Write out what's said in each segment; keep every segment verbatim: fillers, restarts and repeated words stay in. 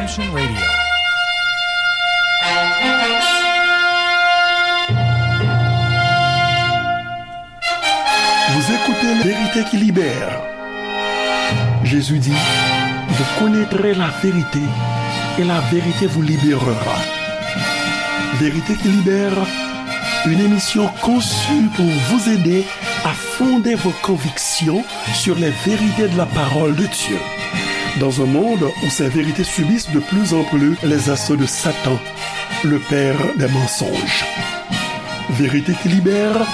Redemption Radio. Vous écoutez La vérité qui libère. Jésus dit, vous connaîtrez la vérité et la vérité vous libérera. Vérité qui libère, une émission conçue pour vous aider à fonder vos convictions sur les vérités de la parole de Dieu. Dans un monde où ces vérités subissent de plus en plus les assauts de Satan, le père des mensonges. Vérité qui libère,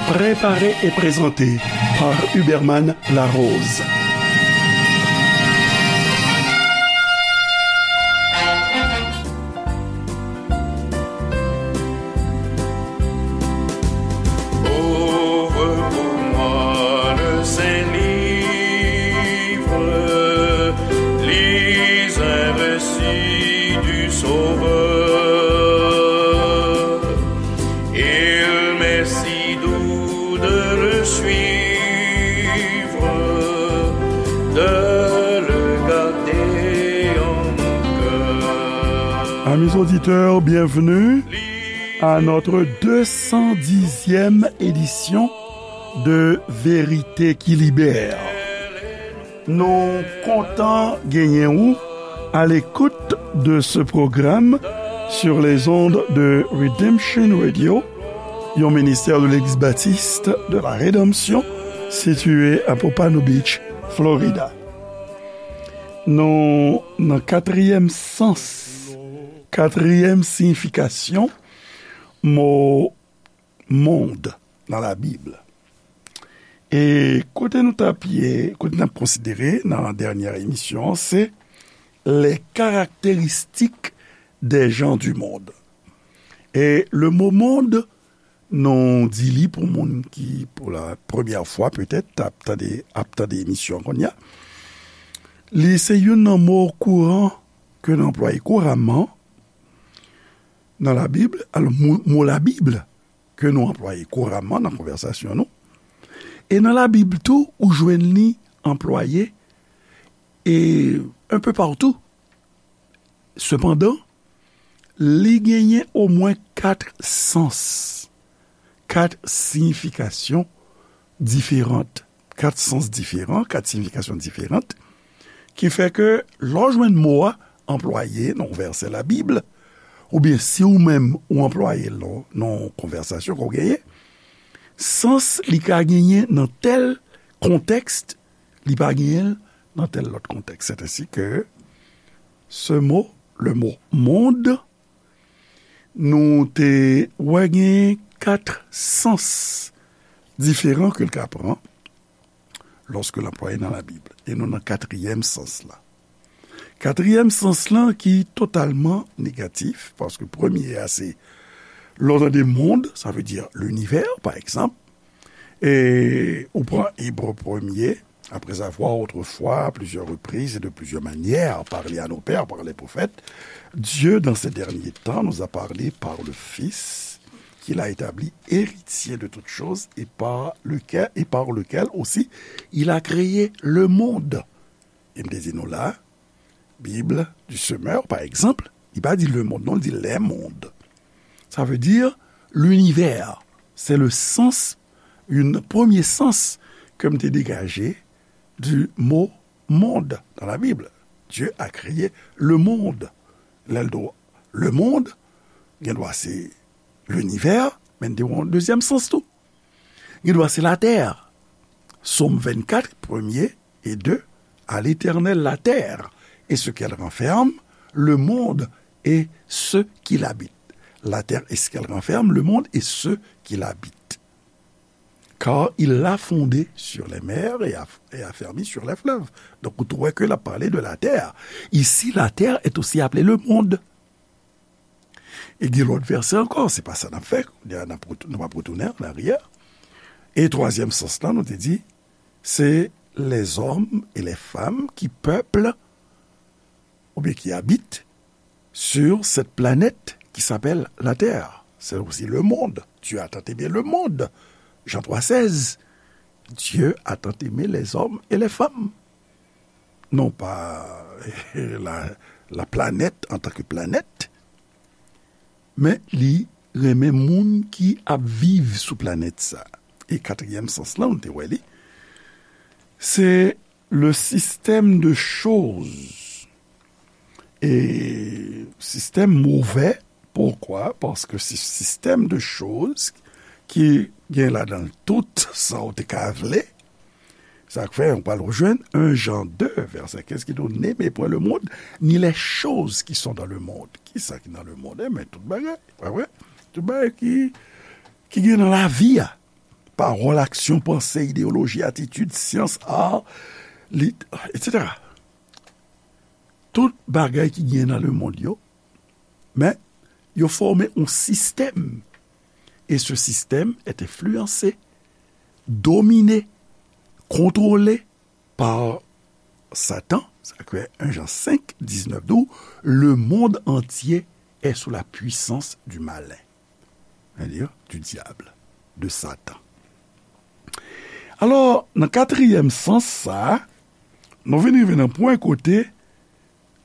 préparée et présentée par Huberman Larose. Ouvre pour moi le saint livre, lis un récit du Sauveur. Il m'est si doux de le suivre, de le garder en mon cœur. Amis auditeurs, bienvenue à notre deux cent dixième édition de Vérité qui Libère. Nou kontan genyen ou à l'écoute de ce programme sur les ondes de Redemption Radio, yon ministère de l'Église baptiste de la Rédemption, situé à Pompano Beach, Florida. Nou nan katriyèm sans, katriyèm siyifikasyon mo mond nan Labib. E kote nou t ap ye, kote n ap konsidere nan dènyè emisyon an, se les caractéristiques des gens du monde. E le mot monde, nou di li pou moun ki, pou la premyè fwa petèt, t ap tande, ap tande emisyon an kounye a. Li se youn nan mo kouran ke n anplwaye kouramman nan Labib. Alò, mo, mo Labib ke nou anplwaye kouramman nan konvèsasyon nou. E nan Labib tou, ou jwenn li anplwaye e un peu partout. Sepandan, li genyen omwen kat sans, kat siyifikasyon diferan, kat sans diferan, kat siyifikasyon diferan, ki fè ke lè w jwenn mo a anplwaye nan yon vèsè Labib, oubyen si ou menm ou anplwaye l nan, nan yon konvèsasyon ke w genyen, sans li ka genyen nan tèl kontèks, li pa genyen l nan tèl lòt kontèks. C'est ainsi que ce mot, le mot monde, nou te wè gen kat sans diferan ke l ka pran lòske l anplwaye nan Labib. E nou nan katriyèm sans la. Katriyèm sans lan ki totalman negatif, paske premye a se, lè w tande mond, sa vle di linivè, pa egzanp, e ou pran Ebre premye, après avoir autrefois, à plusieurs reprises et de plusieurs manières, parlé à nos pères par les prophètes, Dieu, dans ces derniers temps, nous a parlé par le Fils, qu'il a établi héritier de toutes choses et par lequel, et par lequel aussi il a créé le monde. E m te di nou la, Bible du Semeur, par exemple, li pa di le monde, non, li di les mondes. Sa vle di linivè. Se le sans, yon premye sans ke m te degaje du mot monde dans la Bible. Dieu a créé le monde. Lè l di w le monde, gen dwa se linivè, men l te yon dezyèm sans tou. Gen dwa se latè. Sòm vennkat, premye e de, à l'Éternel la terre et ce qu'elle renferme, le monde et ceux qui l'habitent. La terre et ce qu'elle renferme, le monde et ceux qui l'habitent. Car il l'a fondée sur les mers et a, et affermi sur les fleuves. Donk, ou tou wè ke l ap pale de la terre. Ici, la terre est aussi appelée le monde. E gen lòt vèsè ankò, se pa sa n ap fè, kounye a n ap retou-, nou p ap retounen an aryè. E twazyèm sans lan, nou te di, c'est les hommes et les femmes qui peuplent, oubyen qui habitent, sur cette planète qui s'appelle la terre. C'est aussi le monde. Dieu a tant aimé le monde. Jean trois seize. Dieu a tant aimé les hommes et les femmes. Non pas la, laplanèt antanke planèt, men li renmen moun ki ap viv sou planèt sa. E katriyèm sans lan, nou te wè li, se le système de choses. E sistèm movè, poukwa? Paske se sistèm de choz ki gen ladan l tout sa w te ka vle. Sa k fè, nou pral rejwenn en Jan de, vèsè kenz, ki di w, N'aimez point le monde, ni les choses qui sont dans le monde. Kisa ki nan lemonn? Enben, tout bagay, pa vre? Tout bagay ki, ki gen nan lavi a. Pawòl, aksyon, panse, ideyoloji, atitid, syans, ar, lit, etsetera. Tout bagay ki gen nan lemonn yo, men yo fòme yon sistèm. E se sistèm est influencé, dominé, contrôlé par Satan. Sa k fè en Jan senk diznèf di w, Le monde entier est sous la puissance du malin. C'est-à-dire du diable, de Satan. Alò, nan katriyèm sans sa a, nou vin rive nan pwen kote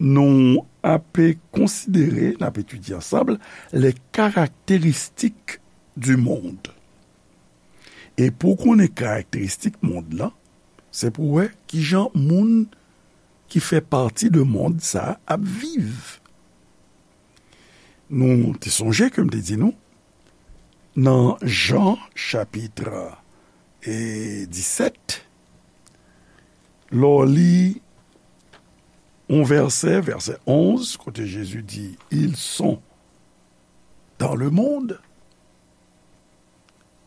nou ape konsidere, n ap etidye ansanm, les caractéristiques du monde. E pou w konnen karakteristik mond lan, se pou w wè kijan moun ki fè pati de mond sa a ap viv. Nou te sonje ke m te di nou, nan Jan chapit, e, disèt, lè w li yon vèsè, vèsè onz, kote Jezi di, Ils sont dans le monde.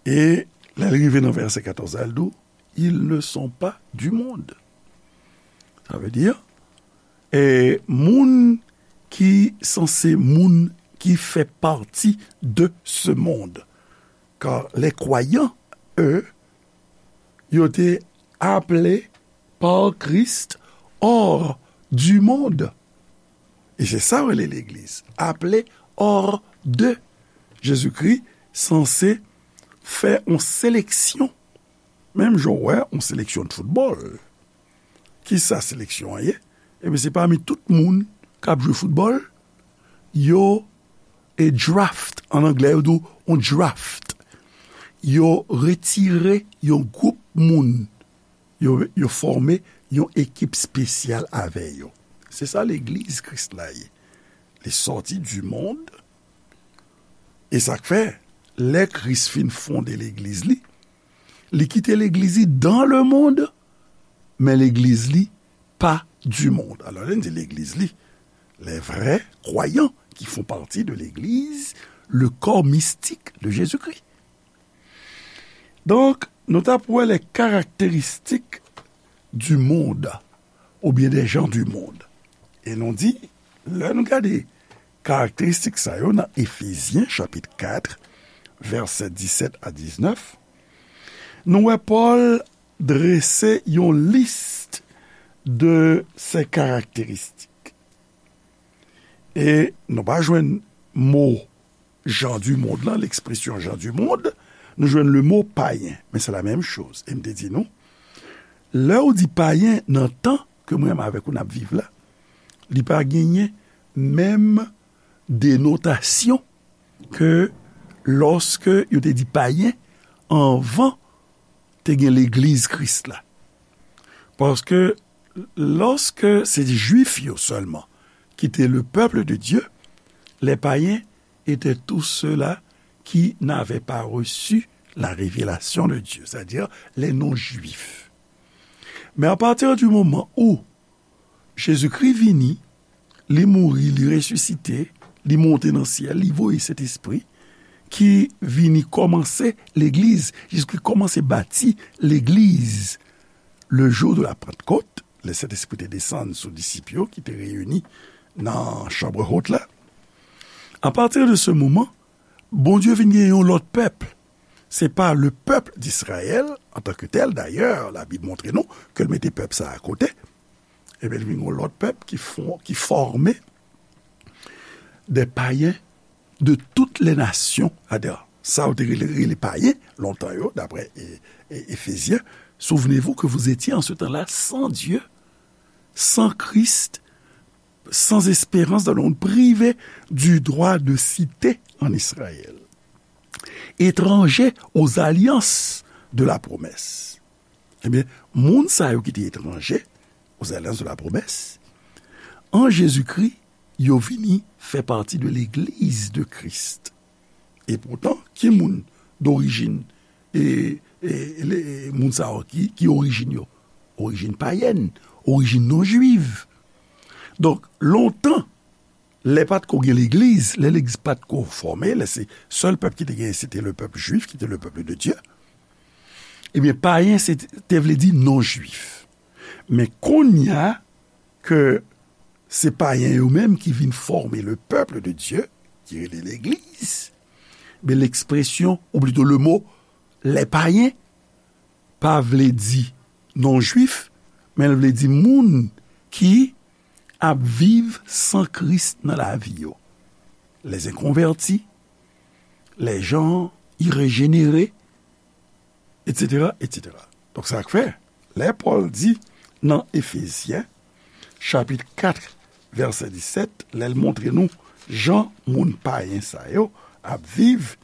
E lè l rive nan vèsè katòz la, l di w, Ils ne sont pas du monde. Sa vle di, e moun ki sanse moun ki fè pati de ce monde. Car les croyants, eux, yo te aple par Christ hors du monde. E se sa yo rele legliz, aple hors de. Jezikri sanse fè yon seleksyon. Menm jan w wè yon seleksyon de foutbòl. Kisa seleksyon an ye? Ebyen, se pami tout moun k ap jwe foutbòl, yo, e draft, an anglè, yo di w yon draft. Yo retire yon gwoup moun, yo, yo fòme yon ekip espesyal avè yo. Se sa legliz Kris la ye. Li sòti du monde, e sa k fè, lè Kris fin fonde legliz li, li kite legliz li dans le monde, men legliz li pa du monde. Alò, lè n di legliz li, les vrais croyants qui font partie de l'église, le corps mystique de Jésus-Christ. Donk, nou t ap wè les caractéristiques du monde, oubyen des gens du monde. E nou di, lè nou gade karakteristik sa yo nan Efezyen chapit kat, vèsè disèt a diznèf, nou wè Pòl drese yon lis de ces caractéristiques. E nou pa jwenn mo gens du monde lan, lekspresyon gens du monde, nou jwenn le mo payen, men se la menm choz. E m te di nou, lè w di payen nan tan ke mwen menm avèk ou n ap viv la, li pa genyen menm denotasyon ke lòske yo te di payen anvan te gen legliz Kris la. Paske lòske se Jwif yo sèlman ki te le peuple de Dieu, les païens étaient tous ceux-là qui n'avaient pas reçu la révélation de Dieu, c'est-à-dire les non-juifs. Men à partir du moment où Jezikri vini, li mouri, li resisite, li monte nan syèl, li voye Sentespri, ki vini kòmanse legliz. Jezikri kòmanse bati legliz le jour de la Pentecôte, lè Sentespri te desann sou disip yo ki te reyini nan chanm wot la. À partir de ce moment, Bondye vin gen yon lòt pèp. Se pa le peuple d'Israël en tant que tel. Dayè, Labib montre nou ke l mete pèp sa a akote. Ebyen, li vin yon lòt pèp ki fò-, ki fòme des païens de toutes les nations. Adè, sa yo te rele, rele payen lontan yo, daprè, e, e, Efezyen. Souvenez-vous que vous étiez en ce temps-là sans Dieu, sans Christ, sans espérance dans le monde, privés du droit de cité en Israël, étrangers aux alliances de la promesse. Ebyen, moun sa yo ki te etranje aux alliances de la promesse, an Jezikri, yo vini fè pati de legliz de Kris. E poutan, ki moun dorijin, e, e, le, moun sa yo, ki, ki orijin yo? Orijin payèn, orijin non jwif. Donk, lontan, lè pa t ko gen legliz, lè legliz pa t ko fòme, lè se sèl pèp ki te genyen, se te le pèp jwif, ki te le peuple de Dieu. Ebyen, payen, se te vle di non jwif. Men kounye a ke se payen yo menm ki vin fòme le peuple de Dieu, ki rele legliz, men lekspresyon, ou plito le mo, les païens, pa vle di non jwif, men l vle di moun ki ap viv san Kris nan lavi yo. Les inconvertis, les gens irrégénérés, et cetera, et cetera. Donk, sa k fè, lè Pòl di nan Efezyen, chapit kat, vèsè disèt, lè l montre nou jan moun payen sa yo ap viv,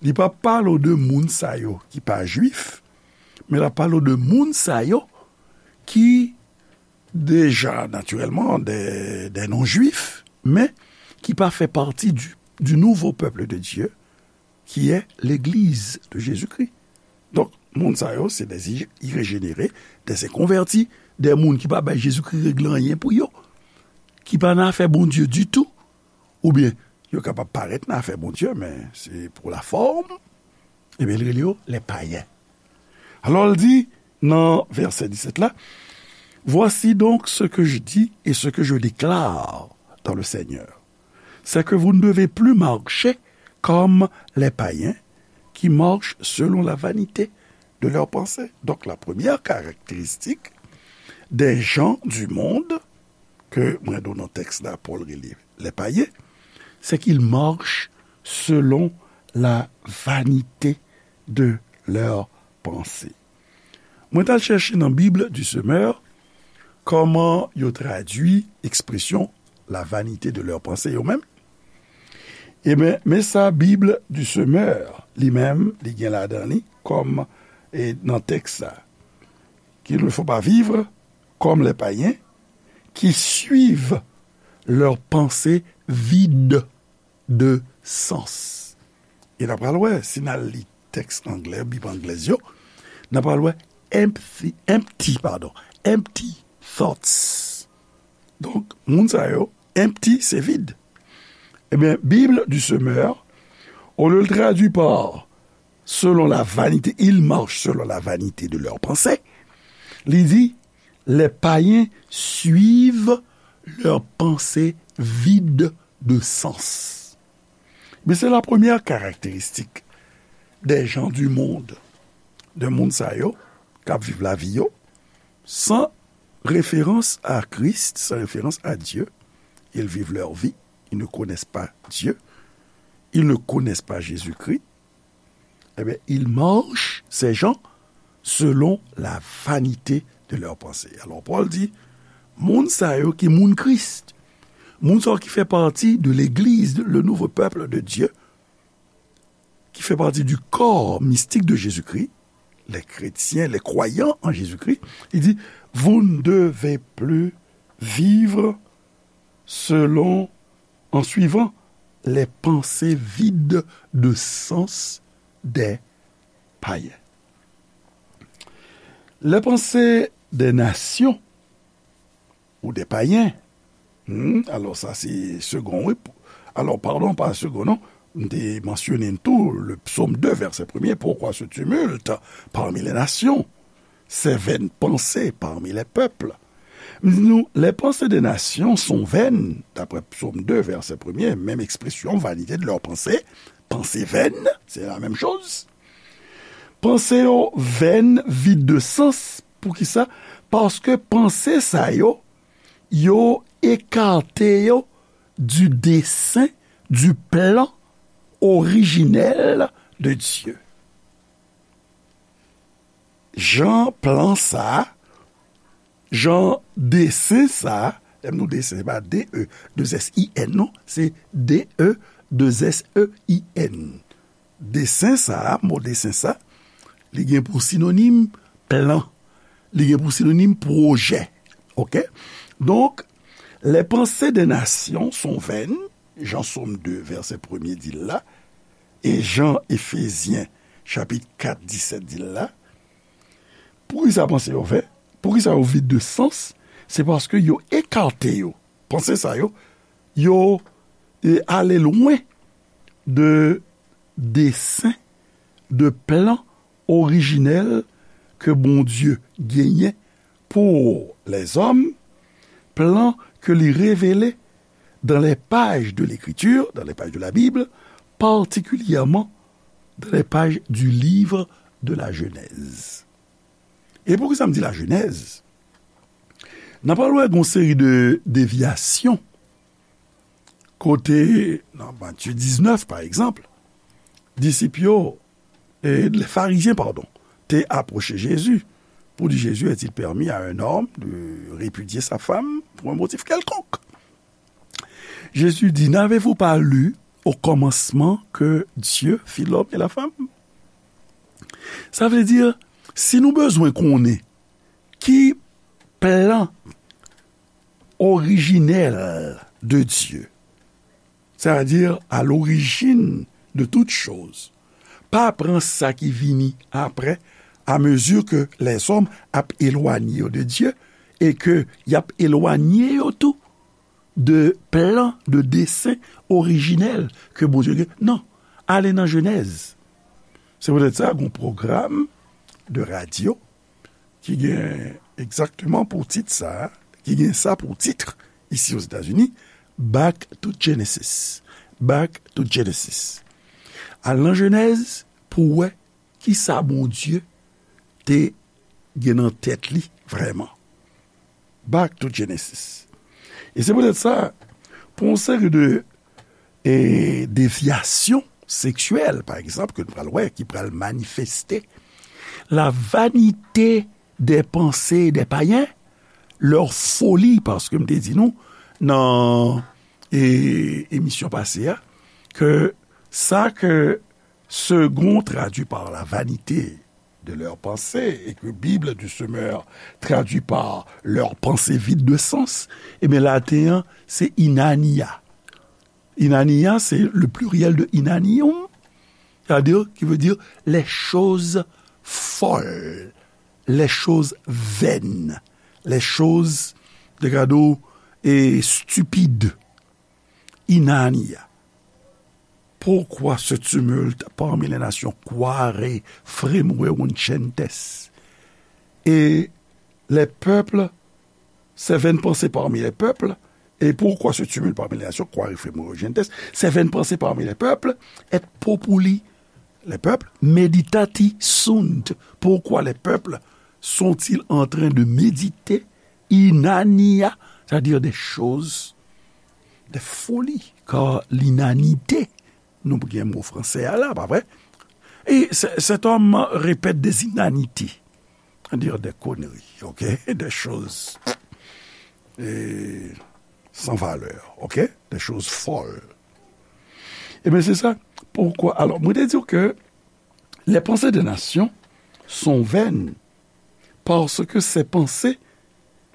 li pa pale w de moun sa yo ki pa jwif, men l ap pale w de moun sa yo ki deja, natirèlman, des, des non-juifs, men ki pa fè pati du, du nouveau peuple de Dieu, qui est l'Église de Jésus-Christ. Donk, moun sa yo, se des i-, irégénérés, des inconvertis, des moun ki pa bay Jezikri regle anyen pou yo, ki pa nan afè Bondye ditou, oubyen yo kapab parèt nan afè Bondye, men se pour la forme, ebyen, li rele yo les païens. Alò, l di nan vèsè disèt la, Voici donc ce que je dis et ce que je déclare dans le Seigneur, c'est que vous ne devez plus marcher comme les païens qui marchent selon la vanité de leurs pensées. Donc, la première caractéristique des gens du monde, ke mwen di w nan tèks la, Pòl rele les païens, c'est qu'ils marchent selon la vanité de leurs pensées. Mwen t al chèche nan Bible du Semeur kòman yo tradui ekspresyon la vanité de leurs pensées yo menm. Ebyen, men sa Bible du Semeur, li menm, li gen ladan li, kòm, e, nan tèks sa, qu'il ne faut pas vivre comme les païens qui suivent leurs pensées vides de sens. E n ap pral wè, si n al li tèks anglè, Bib anglèz yo, n ap pral wè empty, empty, pardon, empty thoughts. Donk, moun sa yo, empty, se vid. Ebyen, Bible du Semeur, au lieu de traduire par selon la vanité, ils marchent selon la vanité de leurs pensées, li di, les païens suivent leurs pensées vides de sens. Men se la premyè karakteristik des gens du monde, de moun sa yo k ap viv lavi yo san référence à Christ, sans référence à Dieu. Ils vivent leur vie, ils ne connaissent pas Dieu, ils ne connaissent pas Jésus-Christ. Eh bien, ils marchent, ces gens, selon la vanité de leurs pensées. Alò, Pòl di, moun sa yo ki moun Kris, moun sa yo ki fè pati de legliz, le nouveau peuple de Dieu, ki fè pati du corps mystique de Jésus-Christ, les chrétiens, les croyants en Jésus-Christ, li di, vous ne devez plus vivre selon, en suivant les pensées vides de sens des païens. Les pensées des nations ou des païens. Hmm, alò, sa se segon, wi. Alò, padon, pa segon, non. M te mansyone tou le psaume deux, verset premier, pourquoi ce tumulte parmi les nations, ces vaines pensées parmi les peuples? M di nou, les pensées des nations sont vaines, d'après psaume deux, verset premier, menm ekspresyon, vanité de leurs pensées, pensées vaines, c'est la même chose. Panse yo vèn, vid de sans. Poukisa? Paske panse sa yo, yo ekate yo du dessein, du plan originel de Dieu. Jan plan sa, jan desen sa, Lè m di w desen, se pa D E, de S I N, non. Se D E, de S E I N. Desen sa a, mo desen sa, li gen pou sinonim plan. Li gen pou sinonim pwojè. Oke? Donk, les pensées des nations sont vaines, jan Sòm de, vèsè premye di l la, e jan Efezyen, chapit kat, disèt di l la. Poukisa panse yo vè? Poukisa yo vid de sans? Se paske yo ekate yo. Panse sa yo, yo, e, ale lwen de desen, de plan orijinèl ke Bondye genyen pou lèzòm, plan ke li revele dans les pages de l'Écriture, dans les pages de la Bible, particulièrement dans les pages du livre de la Genèse. E poukisa m di la Genèse? N ap pral wè gon seri de devyasyon kote, nan Matye diznèf, pa egzanp, disip yo, e, les pharisiens, pardon, te apwoche Jezi pou di, Jésus, est-il permis à un homme de répudier sa femme pour un motif quelconque? Jésus dit, n'avez-vous pas lu au commencement que Dieu fit l'homme et la femme? Sa vle di, si nou bezwen konnen ki plan orijinèl de Dye, c'est-à-dire à l'origine de toute chose, pa pran sa ki vini apre, à mesure que les hommes ap elwanye yo de Dye, e ke y ap elwanye yo tou de plan, de desen orijinèl ke Bondye gen. Non, ale nan Jenèz. Se poutèt sa, gon pwogram de radyo ki gen egzakteman pou tit sa, ki gen sa pou tit, isi Ozetazini, Back to Genesis. Back to Genesis. Al nan Jenèz pou w wè kisa Bondye te gen nan tèt li vrèman. Back to Genesis. E se poutèt sa, pou yon seri de, e, devyasyon seksyèl, pa egzanp, ke nou pral wè, ki pral manifeste, la vanité des pensées des païens, leur folie, paske m te di nou nan, e, emisyon pase a, ke sa ke Segond traduit par la vanité de leurs pensées, et que Bible du Semeur traduit par leurs pensées vides de sens, ebyen, laten an, se inania. Inania, c'est le pluriel de inanium, c'est-à-dire, qui veut dire les choses folles, les choses vaines, les choses, de gado, et stupides. Inania. Pourquoi ce tumulte parmi les nations? Quare fremueruncentes? Et les peuples, ces vaines pensées parmi les peuples, et pourquoi ce tumulte parmi les nations? Quare fremueruncentes? Ces vaines pensées parmi les peuples, et populi, les peuples, meditati sunt? Pourquoi les peuples sont-ils en train de méditer inania, c'est-à-dire des choses, des folies, car l'inanité, nou gen mo fransè a la, pa vre? Et ce- cet homme répète des inanités, c'est-à-dire des conneries, ok? Des choses, eh, sans valeur, ok? Des choses folles. Ebyen, se sa. Poukwa? Alò, mwen te di w ke les pensées des nations sont vaines, parce que ces pensées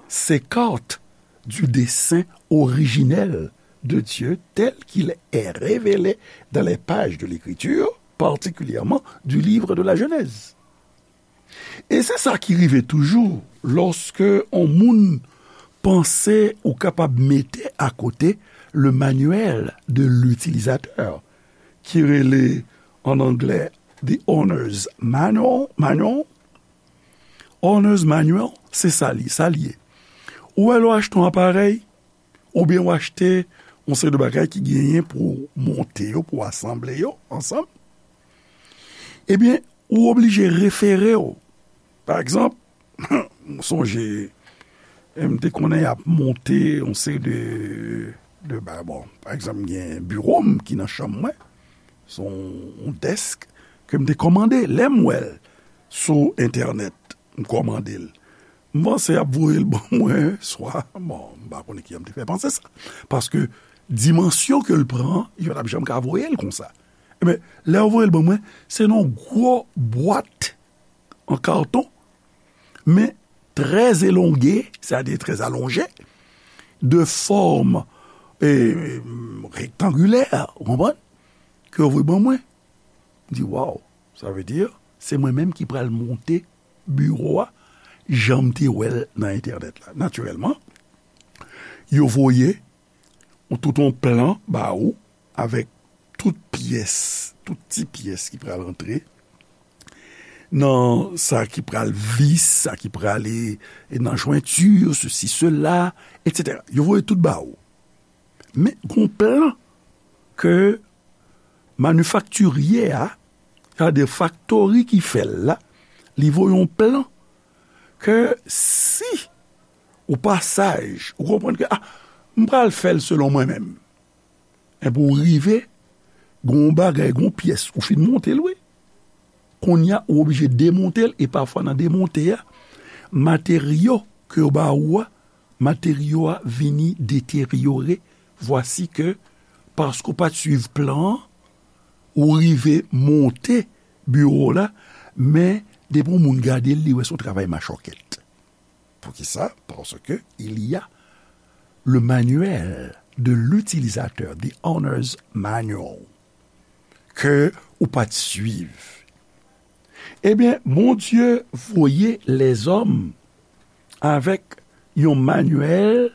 s'écartent du dessein originel de Dieu tel qu'il est révélé dans les pages de l'Écriture, particulièrement du livre de la Genèse. E se sa ki rive toujou lòske yon moun panse ou kapab mete akote le manuel de l'utilisateur, ki rele an anglè The Owner's Manual, manual. Owner's Manual, se sa li, sa li ye. Ou wè lè w achte yon aparèy, oubyen w achte yon seri de bagay ki genyen pou w monte yo, pou w asanble yo ansanm, ebyen, ou oblije refere w. Pa egzanp, m sonje, e, m te konnen y ap monte yon seri de, de ba-, bon, pa egzanp, m gen biwo m ki nan chanm mwen, se yon, yon dèsk ke m te kòmande. Lè m wè l sou entènèt, m kòmande l. M panse y ap voye l ban mwen, swa, bon, m pa konnen ki jan m te fè panse sa. Paske dimansyon ke l pran, yo pa t ap janm ka voye l konsa. Ebyen, lè yo voye l ban mwen, se nan yon gwo bwat an katon, men trè elonge, sètadi trè alonje, de fòm, e, rektangilè, ou konprann, ke yo voye ban mwen. M di, waw, sa vle di, se mwen menm ki pral monte biwo a, jan m te wè l nan entènèt la. Natirèlman, yo voye yon, tout yon plan ba ou, avèk tout pyès, tout ti pyès ki pral antre nan sa ki pral vis, sa ki pral e, e nan jwenti, sesi, sela, etsetera. Yo voye tout ba ou. Men, gon plan ke manifaktirye a, sètadi faktori ki fè l la, li voye yon plan ke si ou pa saj, ou konprann ke, ah, m pral fè l selon mwen menm. Enben, ou rive, gon bagay, gon pyès, ou fin monte l, wi. Kounye a, ou oblije demonte l, e pafwa nan demonte a, materyo ke yo ba ou a, materyo a vini deteryore, vwasi ke, paske w pa t swiv plan an, ou rive monte biwo w la, men depi yon moun gade l, li wè se yon travay machòkèt. Poukisa? Parce que il y a le manuel de l'utilisateur, the owner's manual, ke ou pa t swiv. Ebyen, Bondye voye lèzòm avèk yon manuel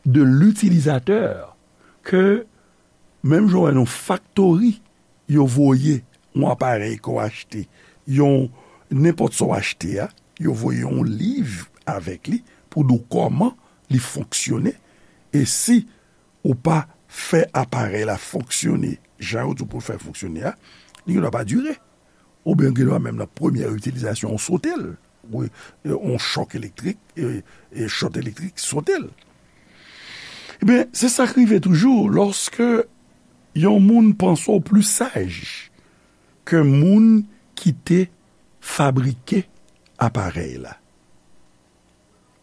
de l'utilisateur ke menm jan w wè nan faktori, yo voye yon aparèy ke w achte, yon, nenpòt sa w achte a, yo voye yon liv avèk li pou di w kòman li fonksyone. E si ou pa fè aparèy la fonksyone jan yo di w pou l fè fonksyone a, li gendwa pa dire. Oubyen gendwa menm nan premyè itilizasyon, ou sote l. Wi, e, yon chòk elektrik, e, e, chòt elektrik sote l. Ebyen, se sa k rive toujou lòske yon moun panse w pli saj ke moun ki te fabrike aparèy la,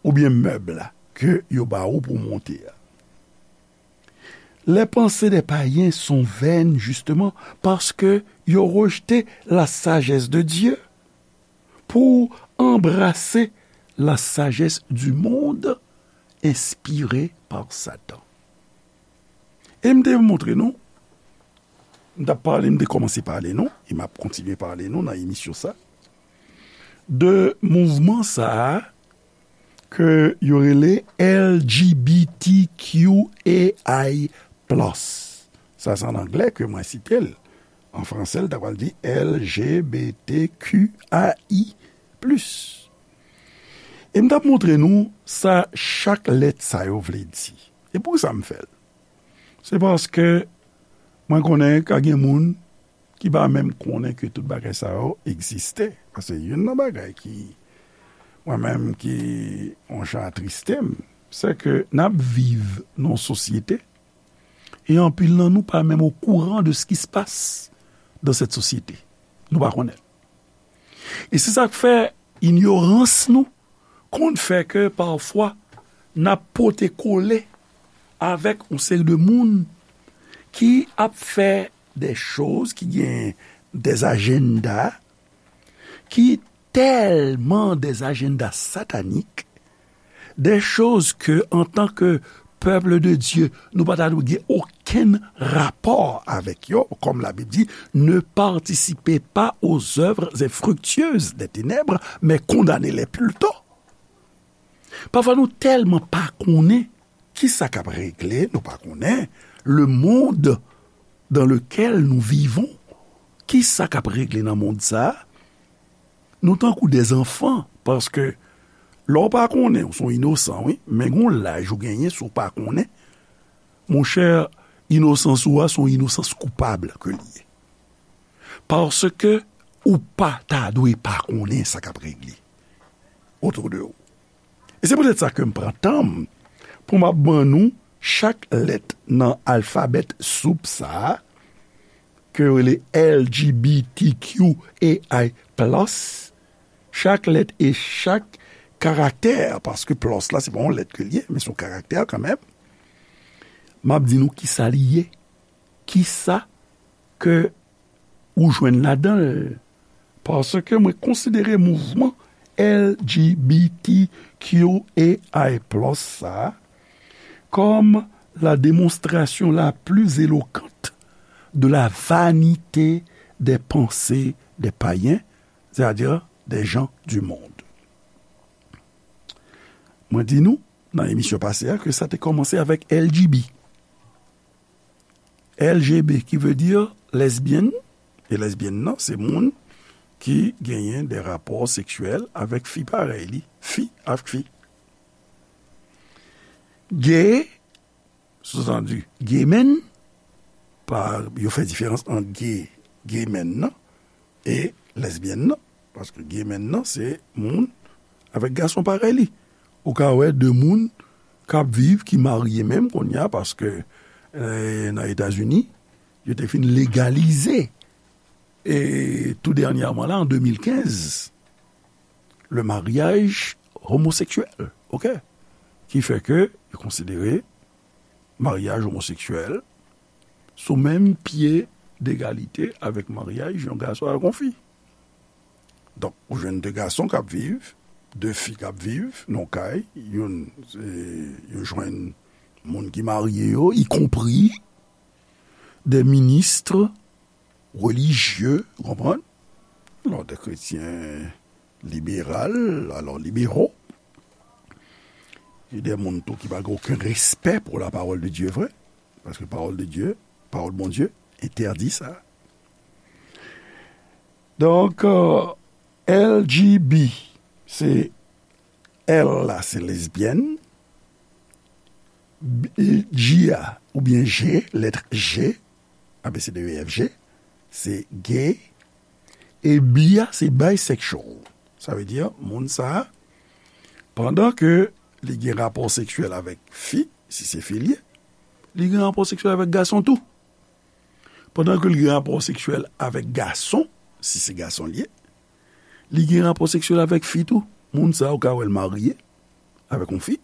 oubyen mèb la, ke yo ba ou pou monte a. Les pensées des païens sont vaines, justement, parce que ils ont rejeté la sagesse de Dieu pour embrasser la sagesse du monde inspirée par Satan. E m te montre nou, m t ap pale, m te kòmanse pale nou, e m ap kontinye pale nou nan emisyon sa, de mouvman sa a ke yo rele L G B T Q A I plus. Sa se an anglè ke mwen site l. An fransè, l ta pral di L G B T Q A I plus. E m t ap montre nou sa chak lèt sa yo vle di. E poukisa m fè l? Se paske mwen konnen ka gen moun ki pa menm konnen ke tout bagay sa yo egziste. Paske youn nan bagay ki, mwen menm ki yon jan atriste m, se ke n ap viv nan yon sosyete, e anpil nan nou pa menm okouran de ce qui se passe dans cette société. Nou pa konnen. E se sa k fè inyorans nou konn fè ke pafwa n ap pote kole avèk yon seri de moun ki ap fè de choz, ki gen de ajanda ki tèlman de ajanda satanik, de choz ke, antanke pèp de Dye, nou pa ta dwe gen okenn rapò avèk yo, kòm Labib di, ne participez pas aux œuvres infructueuses des ténèbres, mais condamnez-les plutôt. Pafwa nou tèlman pa konnen kisa k ap regle, nou pa konnen le monde dans lequel nous vivons, kisa k ap regle nan mond sa a, nou tankou de zanfan, paske lè w pa konnen, ou se yon inosan, wi, men gon laj ou genyen, si w pa konnen, monchè, inosans ou a se yon inosans koupab ke li ye. Paske ou pa ta dwe pa konnen sa k ap regle autour de ou. E se poutèt sa ke m pran tan m pou m ap ban nou chak lèt nan alfabè soup sa a, ke yo rele L G B T Q A I plus, chak lèt e chak karaktè, paske plus la, se pa yon lèt ke l ye, men se yon karaktè kanmenm. M ap di nou kisa li ye, kisa ke ou jwenn ladan l, paske mwen konsidere mouvman L G B T Q A I plus sa a kòm la démonstration la plus éloquente de la vanité des pensées des païens, c'est-à-dire des gens du monde. Mwen di nou, nan emisyon pase a, ke sa te kòmanse avèk L G B. L G B, ki vle di lèzbyèn, e lèzbyèn nan, se moun ki genyen de rapò seksyèl avèk fi parèy li, fi avèk fi. Gay, soutandi, gay men, pa, yo fè diferans ant gay, gay men nan, e lèzbyèn nan. Paske gay men nan, se moun avèk gason parèy li. Ou ka wè de moun k ap viv, ki marye menm kounye a, paske, eh, nan Etazini, yo te fin legalize, e tou dènyèman la, an de mil kenz, le mariage homosexuel, oke? Ki fè ke yo konsidere maryaj omoseksyèl sou menm pye degalite avèk maryaj yon gason avèk yon fi. Donk, ou jwenn de gason k ap viv, de fi k ap viv nan kay, youn, e, yo jwenn moun ki marye yo, ikonpri de ministres religieux, ou konprann? Alò, de kretyen liberal, alò, libéraux, e de moun tou ki pa gen okenn respè pou la parole de Dieu vre, paske parole de Dieu, pawòl Bondye, entèdi sa. Donk, euh, L G B, se L la, se lèzbyèn, B- G a, oubyen G, lèt G, A B C D E F G, se gay, e B a, se bisexual. Sa vle di, moun sa a, pandan ke li gen rapò seksyèl avèk fi, si se fi l ye, li gen rapò seksyèl avèk gason tou. Pandan ke li gen rapò seksyèl avèk gason, si se gason l ye, li gen rapò seksyèl avèk fi tou. Moun sa a, ou ka wè l marye avèk yon fi.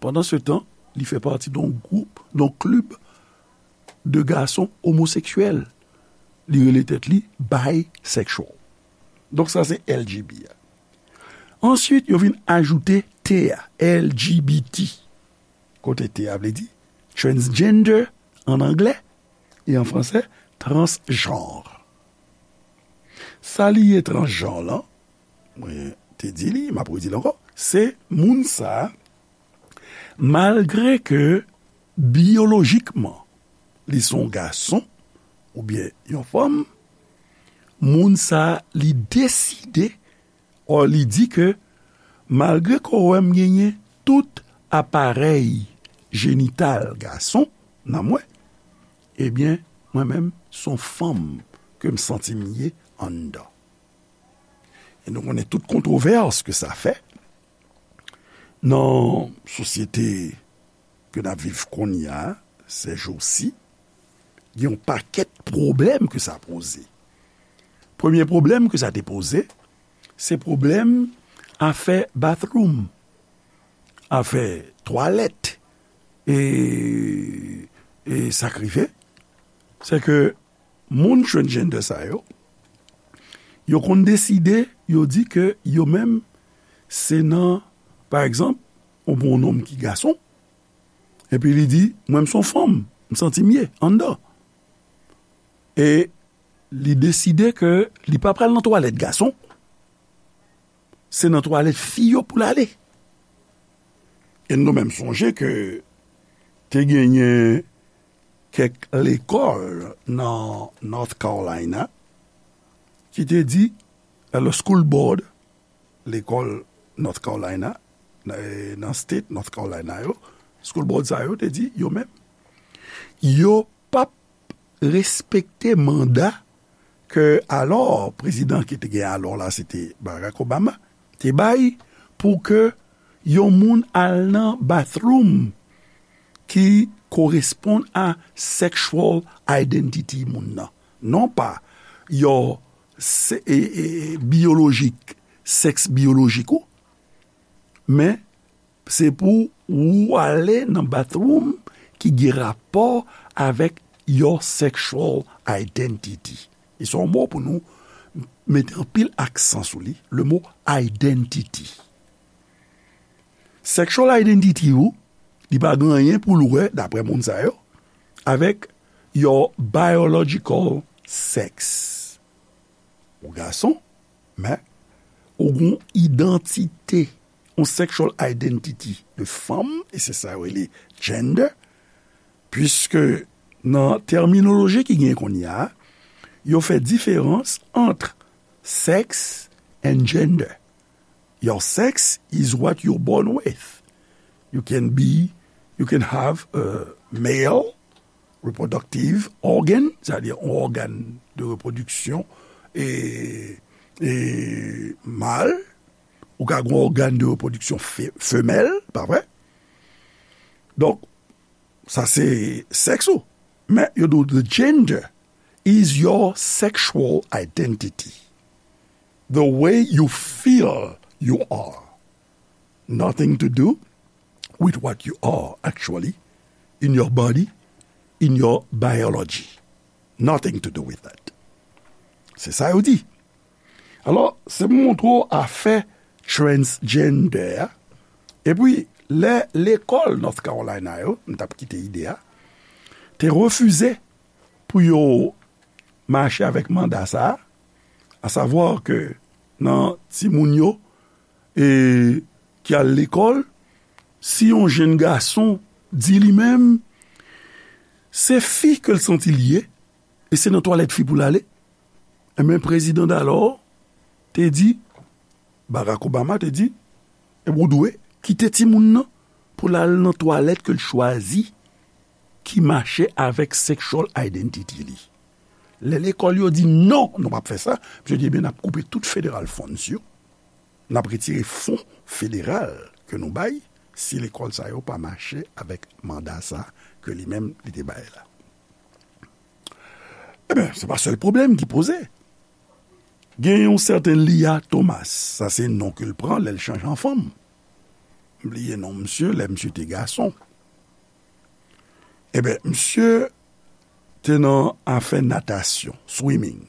Pandan se tan, li fè pati de yon gwoup, de yon klib de gason omoseksyèl. Li rele tèt li bisexual. Donk, sa se L G B a. Answit, yo vin ajoute T a, L G B T. Kote T a vle di transgender an anglè e an fransè, transjanr. Sa li ye transjanr lan, mwen te di li, m ap redi l ankò, se moun sa a, malgre ke biyolojikman li se yon gason oubyen yon fanm, moun sa a, li deside, ò, li di ke malgre ke w wè m genyen tout aparèy jenital gason nan mwen, ebyen, mwen menm, se yon fanm ke m santi m ye anndan. E nou konnen tout kontwovès ke sa fè nan sosyete ke n ap viv kounye a, sèjousi, gen yon pakèt pwoblèm ke sa poze. Premye pwoblèm ke sa te poze, se pwoblèm afè bathroom, afè twalèt, e, e sa k rive, se ke moun transgender sa yo, yo konn deside, yo di ke yo menm, se nan, pa egzanp, ou pran yon nonm ki gason, epi li di, mwen, m se yon fanm, m santi m ye anndan. E li deside ke li pa pral nan twalèt gason, se nan twalèt fi yo pou l ale. E nou menm sonje ke te genyen kèk lekòl nan North Carolina ki te di, le school board, lekòl North Carolina, nan, nan state North Carolina yo, school board sa yo te di, yo menm, yo p ap respekte manda ke alò, prezidan ki te gen alò la, se te Barack Obama, te bay pou ke yon moun al nan bathroom ki koresponn a sexual identity moun nan. Non pa yon se, e, e, biyolojik, sèks biyolojik ou, Men, se pou ou ale nan bathroom ki gen rapò avèk your sexual identity. E se yon mo pou nou mete anpil aksan sou li, le mo identity. Sexual identity ou, li pa gen anyen pou l wè, daprè moun sa yo, avèk your biological sex. Ou gason, men ou gen yon idantite, yon sexual identity de fanm, e se sa yo rele gender, puiske nan tèminoloji ki gen kounye a, yo fè diferans ant sex and gender. Your sex is what you're born with. You can be, you can have a male reproductive organ, sètadi yon ògàn de repwodiksyon e, e mal, ou ka gen yon ògàn de repwodiksyon fe-, femèl, pa vre? Donk, sa se sèks ou. Men, yo di w, the gender is your sexual identity. The way you feel you are. Nothing to do with what you are actually in your body, in your biology. Nothing to do with that. Se sa yo di. Alò, se pou montre w afè transgender a. Epi, lè lekòl North Carolina yo, m t ap kite ide a, te refize pou yo mache avèk manda sa a, asavwa ke nan timoun yo, e, ki al lekòl, si yon jenn gason di li menm, se fi ke l santi l ye, e se nan twalèt fi pou l ale, enben, prezidan dalò te di, Barack Obama te di, e ou dwe kite timoun nan pou l al nan twalèt ke l chwazi ki mache avèk sexual identity li. Lè lekòl yo di non, nou p ap fè sa, misye di, ebyen, n ap koupe tout federal funds yo, n ap retire fon federal ke nou bay si lekòl sa yo pa mache avèk manda sa ke li menm li te bay la. Ebyen, se pa sèl pwoblèm ki poze. Gen yon sèten Lia Thomas, sa se non ke l pran lè l chanje an fanm. M bliye non misye, lè misye te gason. Ebyen, misye te nan afè natasyon, swimming.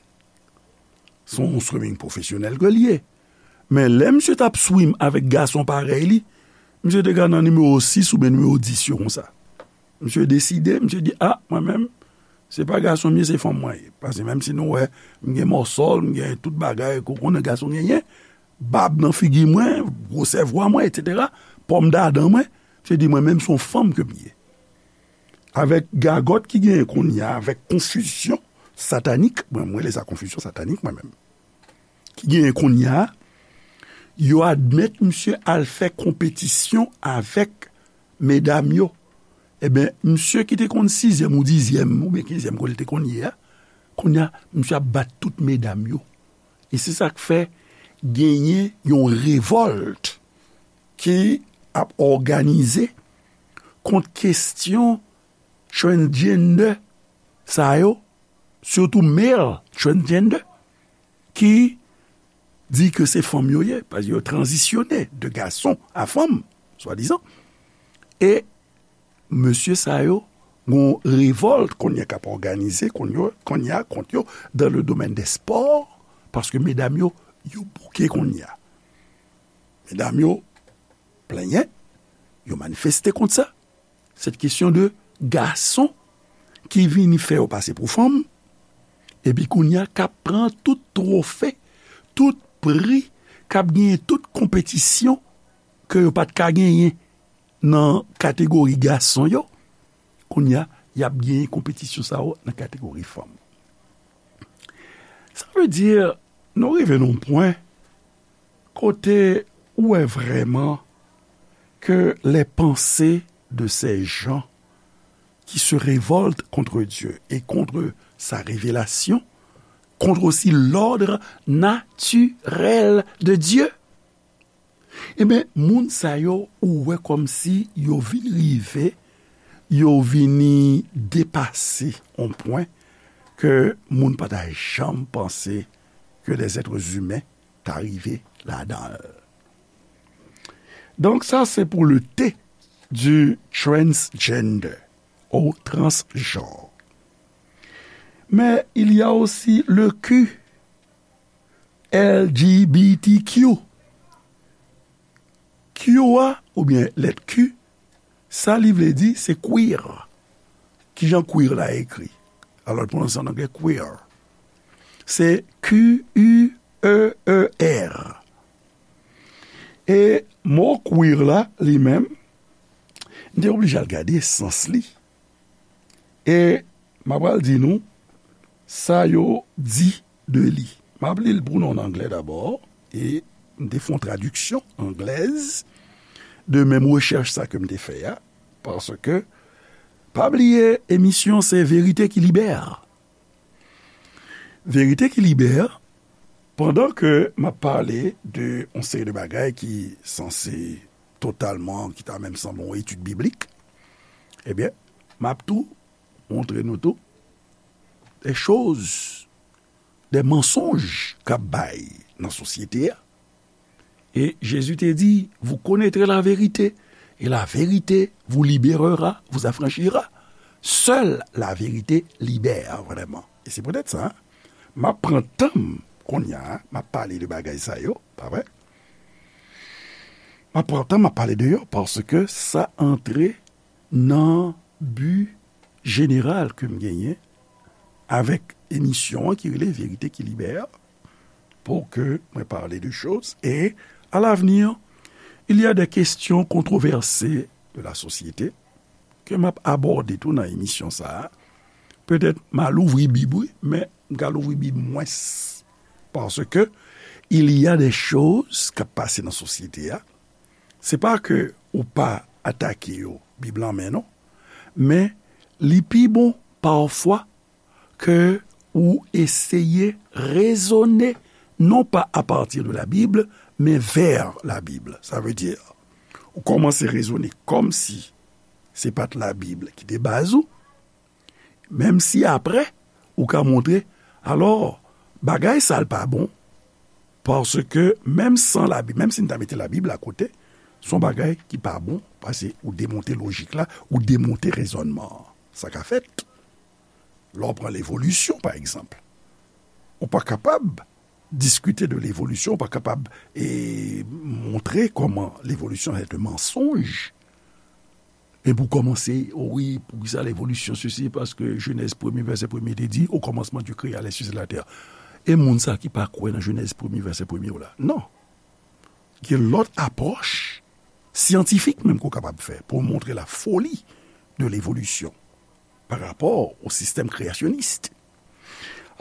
Se yon swimming pwofesyonèl ke l ye. Men lè misye t ap swim avèk gason parèy li, misye te ka nan nimewo sis oubyen nimewo dis yo konsa. Misye deside, misye di, a, mwen menm, se pa gason m ye, se fanm mwen ye. Paske menm si nou wè, m gen mòsòl, m gen tout bagay ke w konnen gason genyen, bab nan figi mwen, gwosè vwa mwen, etsetera, pòm dadan mwen, misye di, mwen menm, se yon fanm ke m ye. Avèk gagòt ki genyen kounye a, avèk konfizyon satanik, mwen, mwen rele sa konfizyon satanik, mwen menm, ki genyen kounye a, yo admèt misye al fè konpetisyon avèk medam yo. Ebyen, misye ki te konn sizyèm ou dizyèm, oubyen kenzyèm kote l te konn ye a, kounye a, misye ap bat tout medam yo. E se sa k fè genyen yon revòlt ki ap òganize kont kesyon transgender sa yo, sitou male transgender, ki di ke se fanm yo ye, paske yo tranzisyone de gason a fanm, swadizan. E mesye sa yo, gon revòlt kounye a k ap òganize kounye a, kounye a kont yo dans le domaine des sports, paske medam yo, yo bouke kounye a. Medam yo plenyen, yo manifeste kont sa. Se kesyon de gason ki vini fè yo pase pou fanm, epi kounye a k ap pran tout twofe, tout pri, k ap genyen tout konpetisyon ke yo pa t ka genyen nan kategori gason yo, kounye a, y ap genyen konpetisyon sa yo nan kategori fanm. Sa vle di, nou rive nan yon pwen kote ou wè vrèman que les pensées de ces gens qui se révoltent contre Dieu et contre sa révélation, contre aussi l'ordre naturel de Dieu. Ebyen, moun sa yo, ou wè kòmsi yo vin rive, yo vini depase yon pwen ke moun pa ta janm panse ke des êtres humains ta rive ladan l. Donc ça, c'est pour le T du transgender ou transgenre. Mais il y a aussi le Q, L G B T Q. Q a, oubyen lèt Q, sa li vle di, se queer. Kijan queer la ekri? Alò, l pwononse an anglè queer. Se Q U E E R. E mo queer la, li menm, m te oblije al gade sans li. E m ap pral di nou sa yo di de li. M ap li l pou nou an anglè dabò, e m te fè yon tradiksyon anglèz de menm rechèch sa ke m te fè a, paske, pa bliye, emisyon se Verite ki libè. Verite ki libè, pandan ke m ap pale de yon seri de bagay ki sanse totalman, ki ta menm sanble yon etid biblik, ebyen, m ap tou montre nou tou de choz, de mansonj k ap bay nan sosyete a. E Jezi te di, vous connaîtrez la vérité, et la vérité vous libérera, vous affranchira. Seule la vérité libère vraiment. E se poutèt sa, m ap pran tan m kounye a, m ap pale de bagay sa yo, pa vre? M ap pran tan m ap pale de yo, paske sa antre nan bi jeneral ke m genyen avèk emisyon an ki rele Verite ki libè, pou ke mwen pale de choz. E, à l'avenir, il y a des questions controversées de la société ke m ap abòde tou nan emisyon sa a. Petèt, m a louvri Bib, wi, men m ka louvri Bib mwens. Paske, il y a des choses k ap pase nan sosyete a. Se pa ke ou pa atake yo, Bib lan men non. Men, li pi bon, pafwa, ke ou eseye rezone, non pa à partir de la Bible, men vers la Bible. Sa vle di, ou kòmanse rezone kòmsi se pa t Labib ki te baz ou, menm si apre, ou ka montre, alò, bagay sa l pa bon, paske menm san Labib, menm si n ta mete Labib la kote, se yon bagay ki pa bon, paske ou demonte lojik la, ou demonte rezònman an. Sa ka fèt. Lè w pran levolisyon, pa egzanp, ou pa kapab diskite de levolisyon, ou pa kapab, e, montre kòman levolisyon se te mansonj. E pou kòmanse, o wi, poukisa levolisyon sesi, paske Jenèz premye, vèsè premye te di, au commencement Dieu créa les cieux et la terre. E moun sa ki pa kwè nan Jenèz premye, vèsè premye w la. Non. Gen lòt apwòch syantifik menm ke w kapab fè pou w montre la foli de levolisyon pa rapò o sistèm kreyasyonis.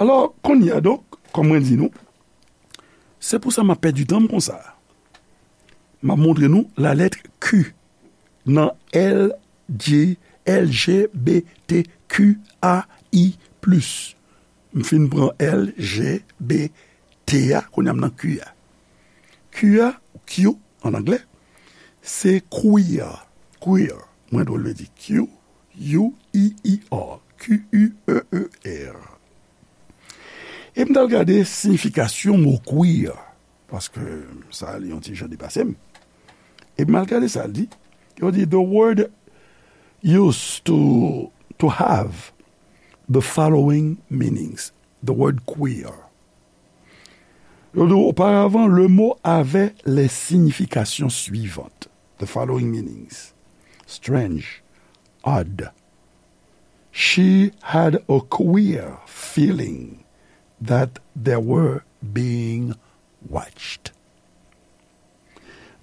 Alò, kounye a, donk, kòm mwen di nou, se pou sa m ap pèdi tan m konsa. M ap montre nou lalèt Q nan L G, L G B T Q A I plis. M fin pran L G B T a, kounye a m nan Q a. Q a, Q an anglè, se queer. Queer. Mwen dwe vle di Q, U E E R. Q U E E R. E m t al gade siyifikasyon mo queer, paske sa li yon ti jan depase m. E m al gade sa l di. Yo di, the word used to, to have the following meanings. The word queer. Yo di, auparavant, le mot avait les significations suivantes. The following meanings. Strange, odd. She had a queer feeling that they were being watched.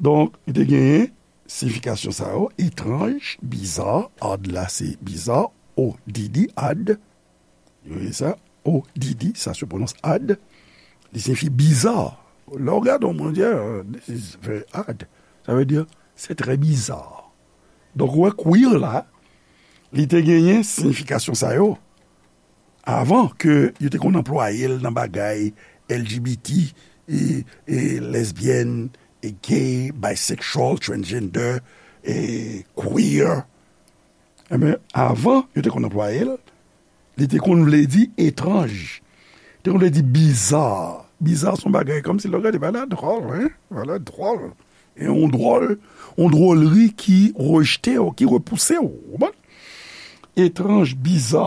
Donk, li te genyen siyifikasyon sa yo, etranj, bizarre, odd la se bizarre, O D D, odd. Vous voyez ça? O D D, ça se prononce odd. Li siyifi bizarre. Lè w gade yon moun, w di, "Ah, this is very odd." Sa vle di, c'est très bizarre. Donk, ou wè, queer la, li te genyen siyifikasyon sa yo avan ke yo te konn anplwaye l nan bagay L G B T, e, e lesbian, e gay, bisexual, transgender, e queer. Enben, avan yo te konn anplwaye l, li te konn vle di etranj. Li te konn vle di bizarre. Bizarre se yon bagay kòmsi lè w gade, bagay la dwòl, hein? Bagay la dwòl. E yon dwòl, yon dwòlri ki rejte w, ki repouse w, ou konprann? Etranj, biza,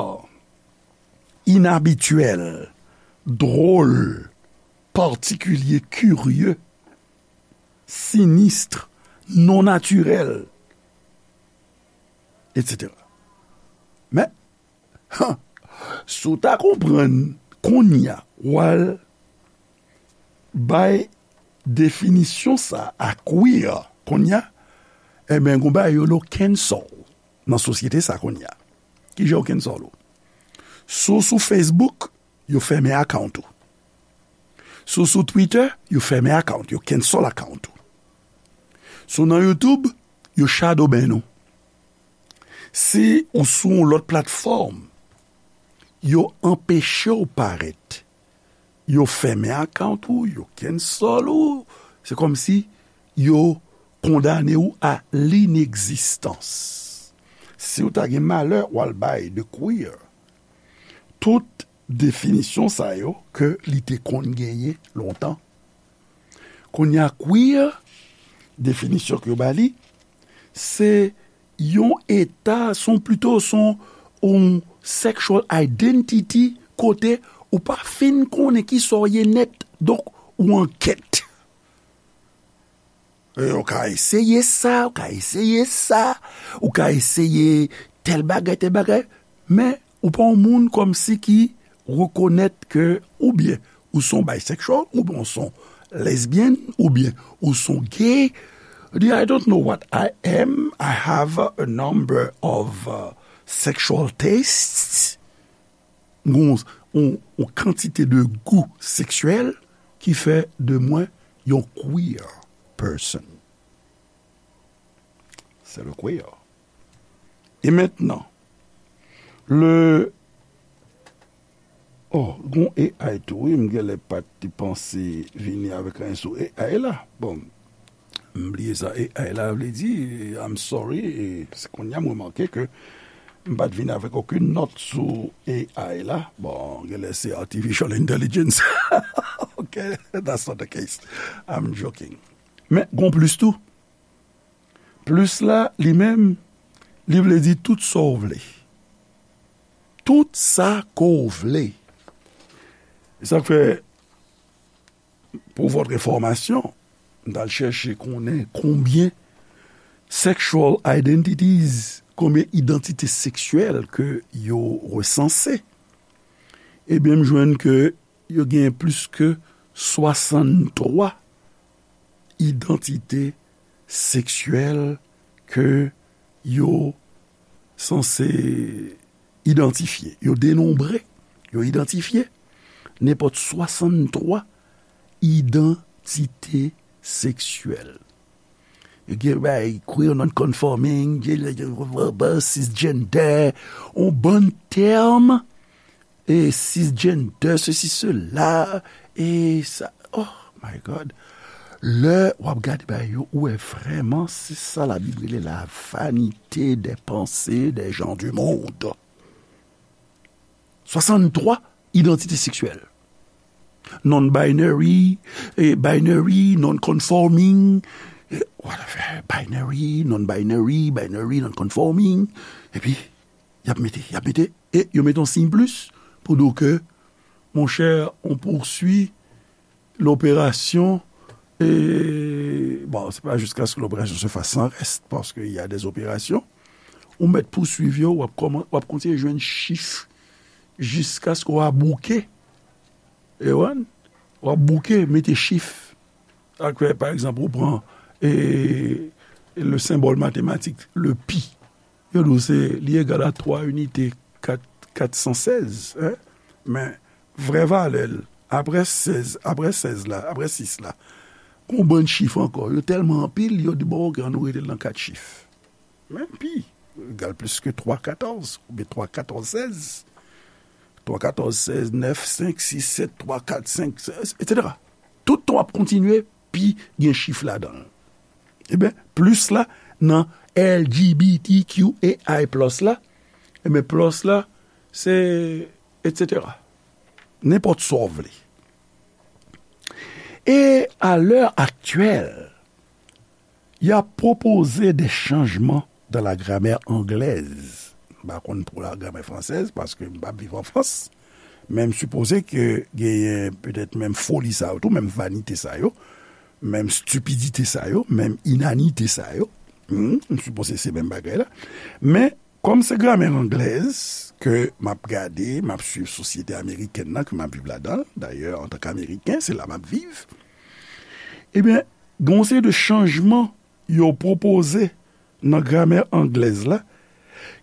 inabityèl, dwòl, patikilye, kirye, sinistre, non natirèl, etsetera. Men, si w ta konprann kounye a, w al bay definisyon sa a queer kounye a, ebyen, gon bagay yo rele cancel nan sosyete sa kounye a. Kijan yo cancel ou? Si w sou Facebook, yo fèmen account ou. Si w sou Twitter, yo fèmen account, yo cancel account ou. Si w nan YouTube, yo shadow ban ou. Si ou sou yon lòt platfòm, yo anpeche w parèt. Yo fèmen account ou, yo cancel ou. Se kòmsi yo kondane ou a linegzistans. Si w ta gen malè, w al bay de queer tout definisyon sa yo ke li te konn genyen lontan. Kounye a, queer, definisyon ke yo ba li, se yon eta, se yon, pito, se yon, yon sexual identity kote ou pa fin konnen kisa w ye nèt, donk ou an kèt. E, ou ka eseye sa, ou ka eseye sa, ou ka eseye tèl bagay, tèl bagay, men ou pa yon moun kòmsi ki rekonèt ke oubyen ou se yon bisexual, oubyen ou se yon lesbian, oubyen ou se yon gay. Di, "I don't know what I am. I have a number of, uh, sexual tastes." Gon yon, yon kantite de gou seksyèl ki fè de mwen yon queer person. C'est le queer. E mentnan, le, oh, gon A I tou, wi, m genlè pa t te panse vini avèk anyen sou A I la. Bon, m bliye sa A I la vle di, I'm sorry, e se kounye a m remake ke m pa t vin avèk okenn nòt sou A I la. Bon, genlè se artificial intelligence. Ok, that's not the case. I'm joking. Men, gon plis tou. Plis la, li menm, li vle di tout sa w vle. Tout sa ke w vle. E sa k fè, pour votre information, m t al chèche konnen konbyen sexual identities, konbyen idantite seksyèl ke yo resanse. Ebyen, m jwenn ke yo gen plis ke swasanntwa idantite seksyèl ke yo sanse idantifye. Yo denonbre, yo idantifye nenpòt swasanntwa idantite seksyèl. Yo gen bay queer non-conforming, gen, gen, gen, cisgender, yon bann tèm, e cisgender, ceci, cela, e sa, oh my God. Lè w ap gade bagay yo, ou wè vrèman se sa Labib rele la vanité des pensées des gens du monde. Swasanntwa idantite seksyèl. Non-binary, e binary, non-conforming, e whatever, binary, non-binary, binary, non-conforming. Epi, y ap mete, y ap mete, e yo mete yon siy plis pou di w ke, monchè, on poursuit l'opération, e, bon, c'est pas jusqu'à ce que l'opération se fasse sans reste, parce qu'il y a des opérations. Ou mèt pouswiv yo, w ap kòman, w ap kontinye jwenn chif jiskaske w ap bouke. E w, w ap bouke, mete chif. Sa k fè, pa egzanp, ou pran, e, le symbole mathématique, le pi. Yo di w se, li egal a twa inite kat, kat san sèz, en. Men, vrè valè l, apre sèz, apre sèz la, apre sis la, gon bann chif ankò, yo tèlman anpil, yo di, bon, ok, ann nou rete l nan kat chif. Men pi egal plis ke twa katòz, oubyen twa katòz sèz. Twa katòz sèz, nèf senk sis sèt twa kat senk, etsetera. Tout tan w ap kontinye, pi gen chif ladan l. Ebyen, plis la, nan L G B T Q A I plus la, ebyen, plus la, se etsetera. Nenpòt sa w vle. E a lè aktyèl, y a proposé des changements dans la grammaire anglaise. M pa konn pou la gramè fransèz, paske m p ap viv an Frans. Men m sipoze ke genyen petèt menm foli sa yo tou, menm vanite sa yo, menm stipidite sa yo, menm inanite sa yo. Hmm, m sipoze se menm bagay la. Men, kòm se gramè anglèz ke m ap gade, m ap swiv sosyete amerikèn nan ke m ap viv ladan l, dayè, antanke Ameriken, se la m ap viv, ebyen, gen yon seri de chanjman yo pwopoze nan gramè anglèz la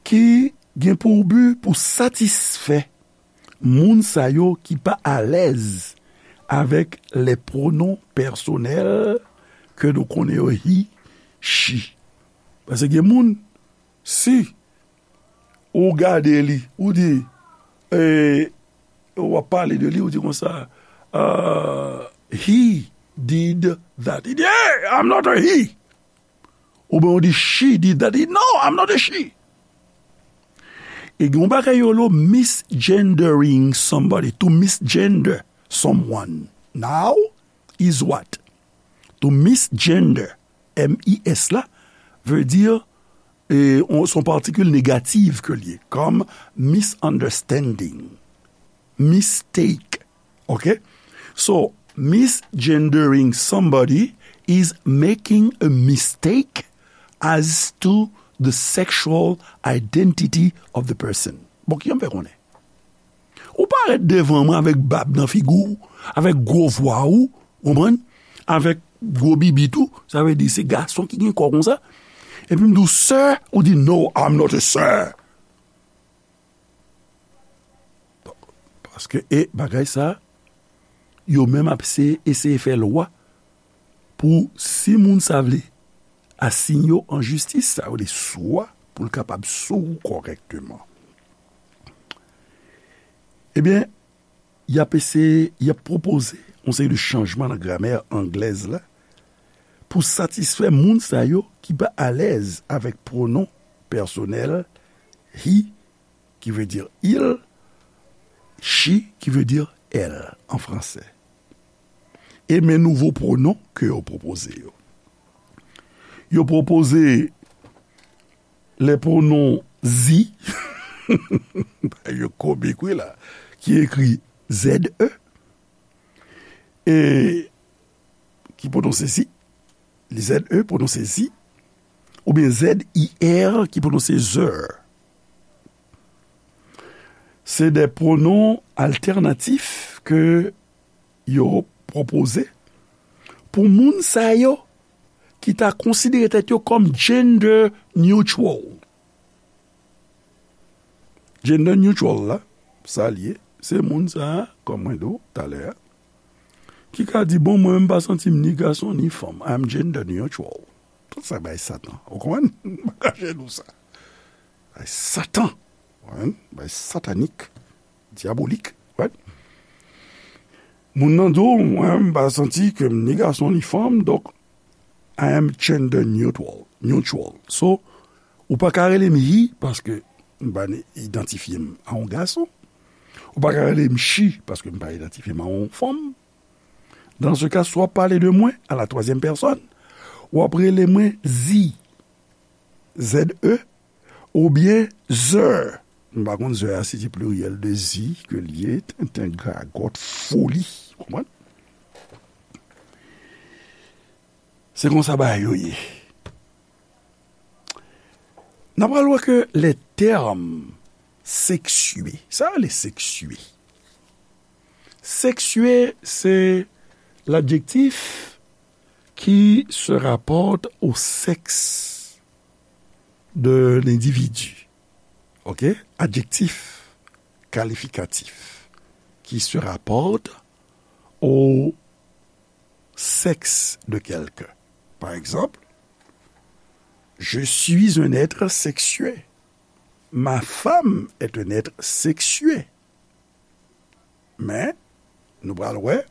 ki gen pou bi pou satisfè moun sa yo ki pa alèz avèk les pronoms personnels ke nou konnen yo he, she. Paske gen moun, si ou gade li, ou di, e, w ap pale de li, ou di konsa, uh, he did that. Li di, hey, I'm not a he. Oubyen ou di, she did that. Li di, no, I'm not a she. E gen yon bagay yo lo misgendering somebody, to misgender someone. Now is what? To misgender, M I S la, vle di, e, on, se yon patikil negatif ke l ye, kòm misunderstanding, mistake. Ok? So, misgendering somebody is making a mistake as to the sexual identity of the person. Bon, ki jan m fè konnen? Ou parèt devan mwen avèk bab nan figi w, avèk gwo vwa ou, konprann? Avèk gwo bibit ou, sa vle di se gason ki gen kò konsa. Epi m di w, sir, ou di, no, I'm not a sir. Paske, e, bagay sa, yo menm ap se-, eseye fè lwa pou si moun sa vle asiyen yo an jistis, sa yo vle sou a, pou l kapab sou ou kòrèkteman. Ebyen, y ap eseye, y ap pwopoze yon seri de chanjman nan gramè anglèz la pou satisfè moun sa yo ki pa alèz avèk pwonon pèsonèl he, ki vle di il, she, ki vle di elle an fransè. E men nouvo pwonon ke yo pwopoze yo. Yo pwopoze les pronoms ze, yo komik wi la, ki ekri Z E, e ki pwononse zi, Z E pwononse zi, oubyen Z I R ki pwononse zè. Se de pwonon altènatif ke yo pwopoze pou moun sa yo ki ta konsidere tèt yo kòm gender neutral. Gender neutral la, sa l ye, se moun sa a, kòm mwen di w talè a, ki ka di, bon, mwen, m pa santi m ni gason ni fanm. I'm gender neutral. Tout sa bay Satan. Ou konprann? M pa kache nou sa. Bay Satan. Ou konprann? Bay satanik, dyabolik. Right? Moun nan di w, mwen, m pa santi ke m ni gason ni fanm, donk, I am gender neutral. Neutral. So, ou pa ka rele m he, paske m pa idantifye m a yon gason. Ou pa ka rele m she, paske m pa idantifye m a yon fanm. Dans ce cas, si w ap pale de mwen à la troisième personne, w ap rele mwen ze, Z E, oubyen zè. M pa konn zè a si se pliryèl de zi ke l ye, tenten, gagòt, foli. Konprann? Se konsa bagay yo ye. N a pral wè ke les termes sexués, sa rele sexué. Sexué, c'est l'adjectif qui se rapporte au sexe de l'individu. Ok? Adjectif qualificatif qui se rapporte au sexe de quelqu'un. Par exemple, je suis un être sexué. Ma femme est un être sexué. Men, nou pral wè,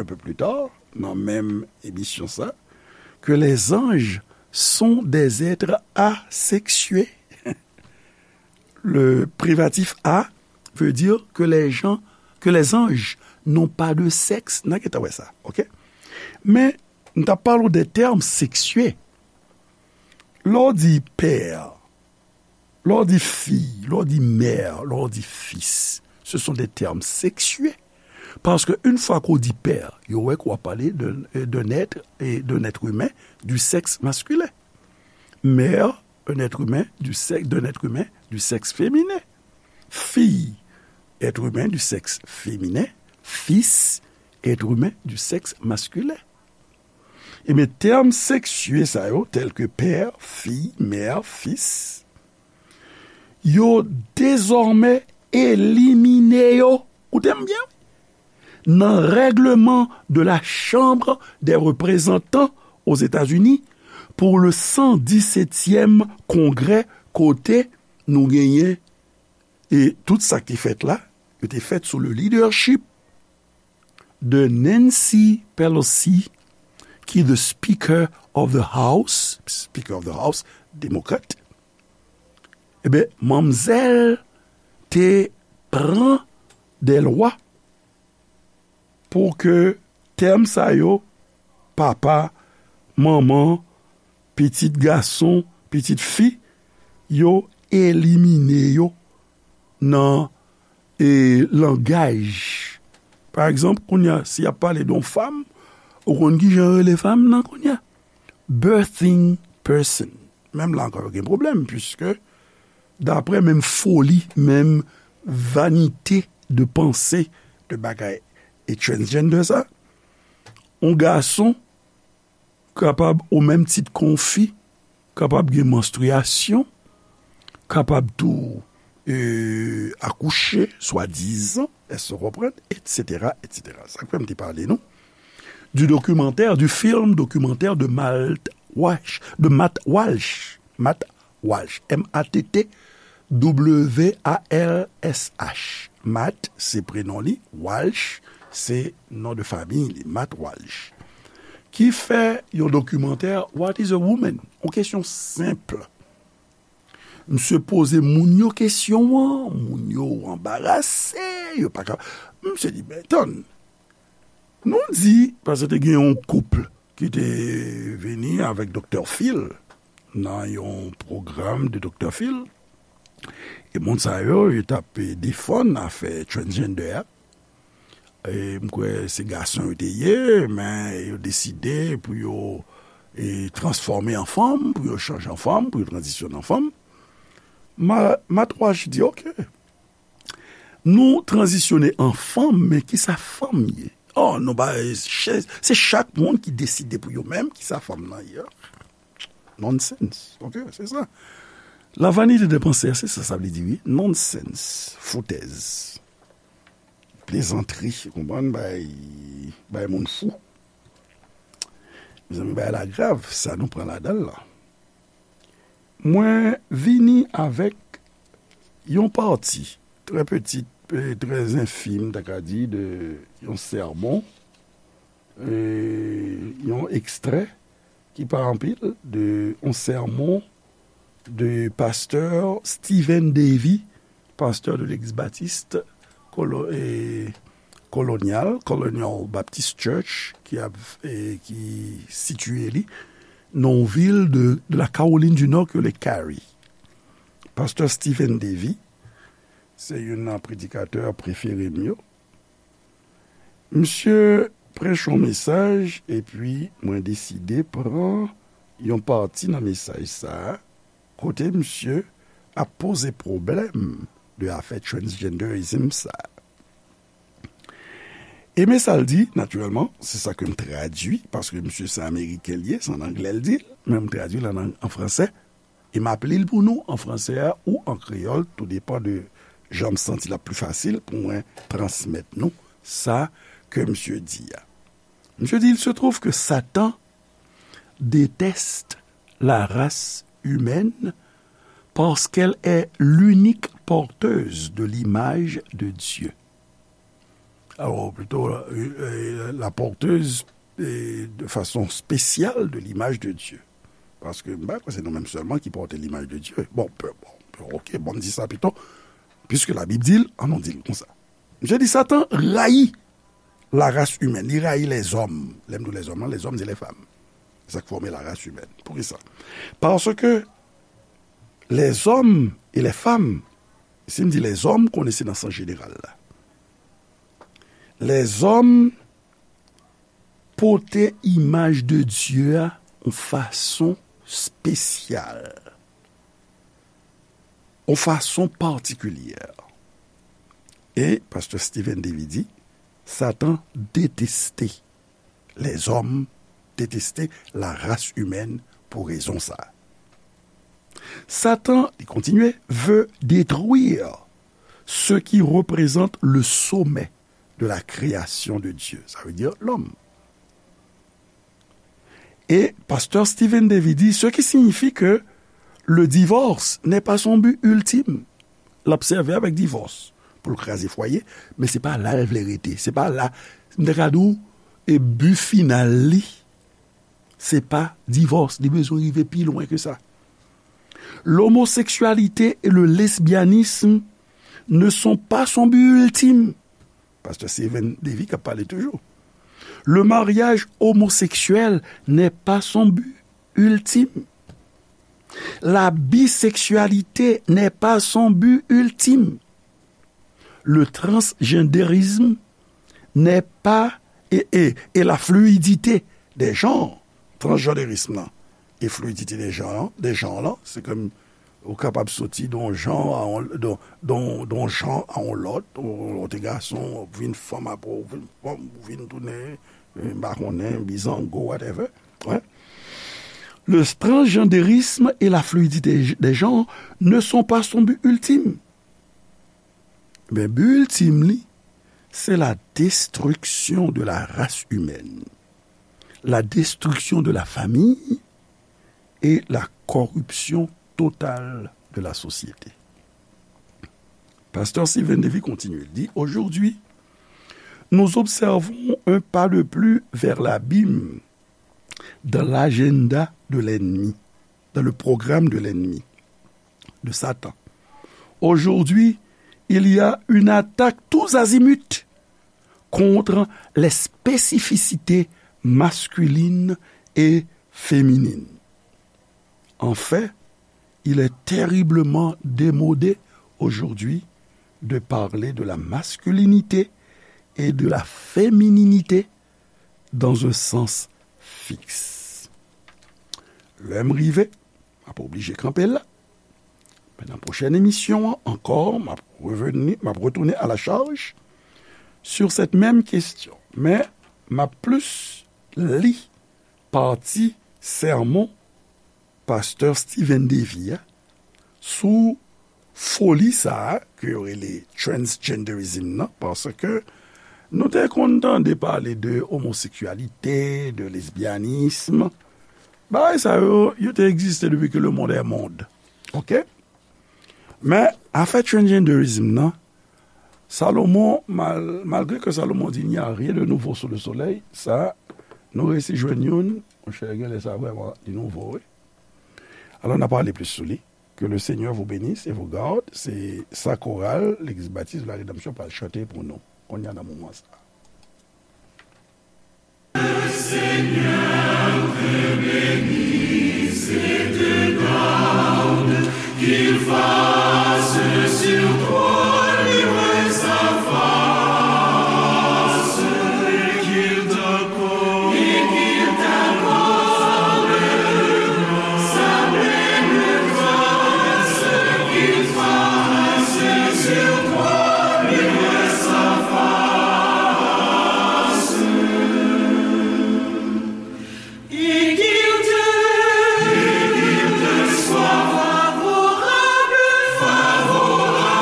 un peu plus tard, nan menm emisyon sa, que les anges sont des êtres asexués. Le privatif a veut dire que les gens, que les anges n'ont pas de sexe. N a gentan wè sa, ok? Men, m t ap pale w de termes sexués. Lè w di pè, lè w di fi, lè w di mè, lè w di fis, ce sont des termes sexués. Paske yon fwa ke w di pè, yo wè ke w ap pale de, d'un être, et d'un être humain du sexe masculin. Mère, un être humain du sexe, d'un être humain du sexe féminin. Fille, être humain du sexe féminin. Fils, être humain du sexe masculin. Ebyen, tèm seksye sa yo, tèl ke pè, fi, mè, fis, yo dezòmè elimine yo, koute m byen, nan règleman de la Chambre des Représentants aux États-Unis pour le san disètyèm kongrè, kote nou genyen, e tout sa ki te fèt la, yo te fèt sou le leadership de Nancy Pelosi, ki the Speaker of the House, Speaker of the House, demokrat, ebyen, manmzèl te pran de lwa pou ke tèm sa yo, papa, manman, pitit gason, pitit fi, yo elimine yo nan, e, langaj. Pa egzanp, kounye a, si y ap pale de yon fanm, ou konn ki jan yo rele fanm nan kounye a? Birthing person. Menm la ankò, yo gen pwoblèm, puiske, daprè menm foli, menm vanite de panse de bagay e transgender sa, yon gason kapab, o menm tit ke yon fi, kapab gen manstriyasyon, kapab tou, e, akouche, swadizan, èske w konprann, etsetera, etsetera. Sa k fè m te pale nou du documentaire, du film documentaire de Matt Walsh, de Matt Walsh, Matt Walsh, M A T T W A L S H. Matt, se prenon li, Walsh, se non de fanmi li, Matt Walsh. Ki fè yon dokimantè, What is a woman? Yon kesyon senp. Misye poze moun yo kesyon an, moun yo anbarase, yo pa ka. Misye di, "Ben, tann, nou di," paske te gen yon koup ki te vini avèk Doktè Phil nan yon pwogram de Doktè Phil. E moun sa yo, yo t ap, e, defann afè transgender a. E m kwè se gason yo te ye, men yo deside pou yo, e, transfòme an fanm, pou yo chanje an fanm, pou yo tranzisyone an fanm. Ma-, Matt Walsh di, "Oke, nou tranzisyone an fanm, men kisa fanm ye? Oh, nou ba, se, se chak moun ki deside pou yo menm kisa fanm nan ye." Nonsense. Oke, se sa. La vanité de penser, se sa sa vle di, wi. Nonsense. Foutèz. Plezantri, ou konprann, bay, bay moun fou. Mezanmi, bagay la grav, sa nou pran ladan l la. Mwen vini avèk yon pati trè pitit, e, trè enfim, ta ka di, de yon sèmon, e, yon ekstrè ki pa anpil, de yon sèmon de pastè Stephen Davey, pastè de legliz batis kolo-, e, kolonyal, Colonial Baptist Church, ki ap, e, ki sitiye li nan yon vil de, de la Caroline du Nord ki rele Cary. Pastè Stephen Davey, se youn nan predikatè prefere m yo. Misye preche yon mesaj, epi mwen deside pran yon pati nan mesaj sa a, kote misye ap poze pwoblèm de afè transgenderism sa a. E men sa l di, natirèlman, se sa ke m tradui, paske misye se Ameriken l ye, se an anglè l di l, men m tradui l an, an fransè. E m ap li l pou nou an fransè a ou an kreyòl, tou depan de jan m santi l ap pli fasil pou mwen transmèt nou sa ke misye di a. Misye di, "Il se trouve que Satan déteste la race humaine parce qu'elle est l'unique porteuse de l'image de Dieu." Alors, plutôt, euh, euh, la porteuse, euh, de façon spéciale de l'image de Dieu. Paske, m pa kwè se nou menm sèlman ki pòte l'image de Dieu. Bon, pe-, bon, pe-, ok, bon, m di sa pito, puisque la Bible di l, ann nou di l konsa. Misye di Satan rayi la race humaine, li rayi lèzòm. Lè m di lèzòm lan, lèzòm, se lèfanm. Sa k fòme la race humaine. Poukisa? Paske lèzòm e lèfanm, si m di lèzòm, konnen se nan sans jeneral la. Lèzòm pote imaj de Dye a yon fason espesyal, yon fason patikilye. E pastè Steven Davy di, Satan deteste lèzòm, deteste la race humaine pou rezon sa. Satan, li kontinye, veut détruire ce qui représente le sommet de la création de Dieu. Ça veut dire l'homme. Et pasteur Steven Davy dit, ce qui signifie que le divorce n'est pas son but ultime. L ap sèvi avèk divòs pou l kraze fwaye, men se pa la l vle rete. Se pa la, m te ka di w, e bi final li, se pa divòs. Li bezwen rive pi lwen ke sa. L'homosexualité et le lesbianisme ne sont pas son but ultime. Pastè Steven Davy k ap pale toujou. Le mariage homosexuel n'est pas son but ultime. La bisexualité n'est pas son but ultime. Le transgenderisme n'est pas, et, et, et la fluidité des genres. Transgenderism nan e fluidité des genres, des genres lan, se kòm ou kapab soti de yon jan a yon, de, de, de yon jan a yon lòt, ou, ou te gason, ou vin fanm, apre ou vin fanm, ou vin tounen, eh, m pa konnen, bizango, whatever. Wi. Le transgenderisme et la fluidité des genres ne sont pas son but ultime. Men bi iltim li, se la destruction de la race humaine, la destruction de la famille et la corruption totale de la société. Pasteur Steven Davy continue, il dit, aujourd'hui, nous observons un pas de plus vers l'abîme dans l'agenda de l'ennemi, dans le programme de l'ennemi, de Satan. Aujourd'hui, il y a une attaque tous azimuts contre les spécificités masculines et féminines. En fait, il est terriblement démodé aujourd'hui de parler de la masculinité et de la fémininité dans un sens fixe. Lè m rive, m ap oblije kanpe la. Men nan pwochèn emisyon an ankò, m ap reveni, m ap retounen à la charge sur cette même question. Men m ap plis li pati sèmon pastè Steven Davy a sou foli sa a ke yo rele transgenderism nan, paske nou te konn tande pale de omoseksyalite, de lesbyanism. Bagay sa yo, yo te egziste depi ke le monde est monde. Oke? Men, afè transgenderism nan, Salomon, mal-, malgre ke Salomon di, "Il n'y a rien de nouveau sous le soleil", sa, nou resi jwenn youn, monchè, genlè sa vrèman li nouvo, wi. Alò, n a pale plis sou li. Que le Seigneur vous bénisse et vous garde. Se sa koral Legliz Batis de la Rédemption pral chante pou nou kounye a nan moman sa. Seigneur te bénisse et te garde, qu'il fasse sur toi luire sa face, et qu'il t'accorde, et qu'il t'accorde sa pleine grâce, qu'il fasse sur toi luire sa face. Et qu'il te, et qu'il te soit favorable, favorable.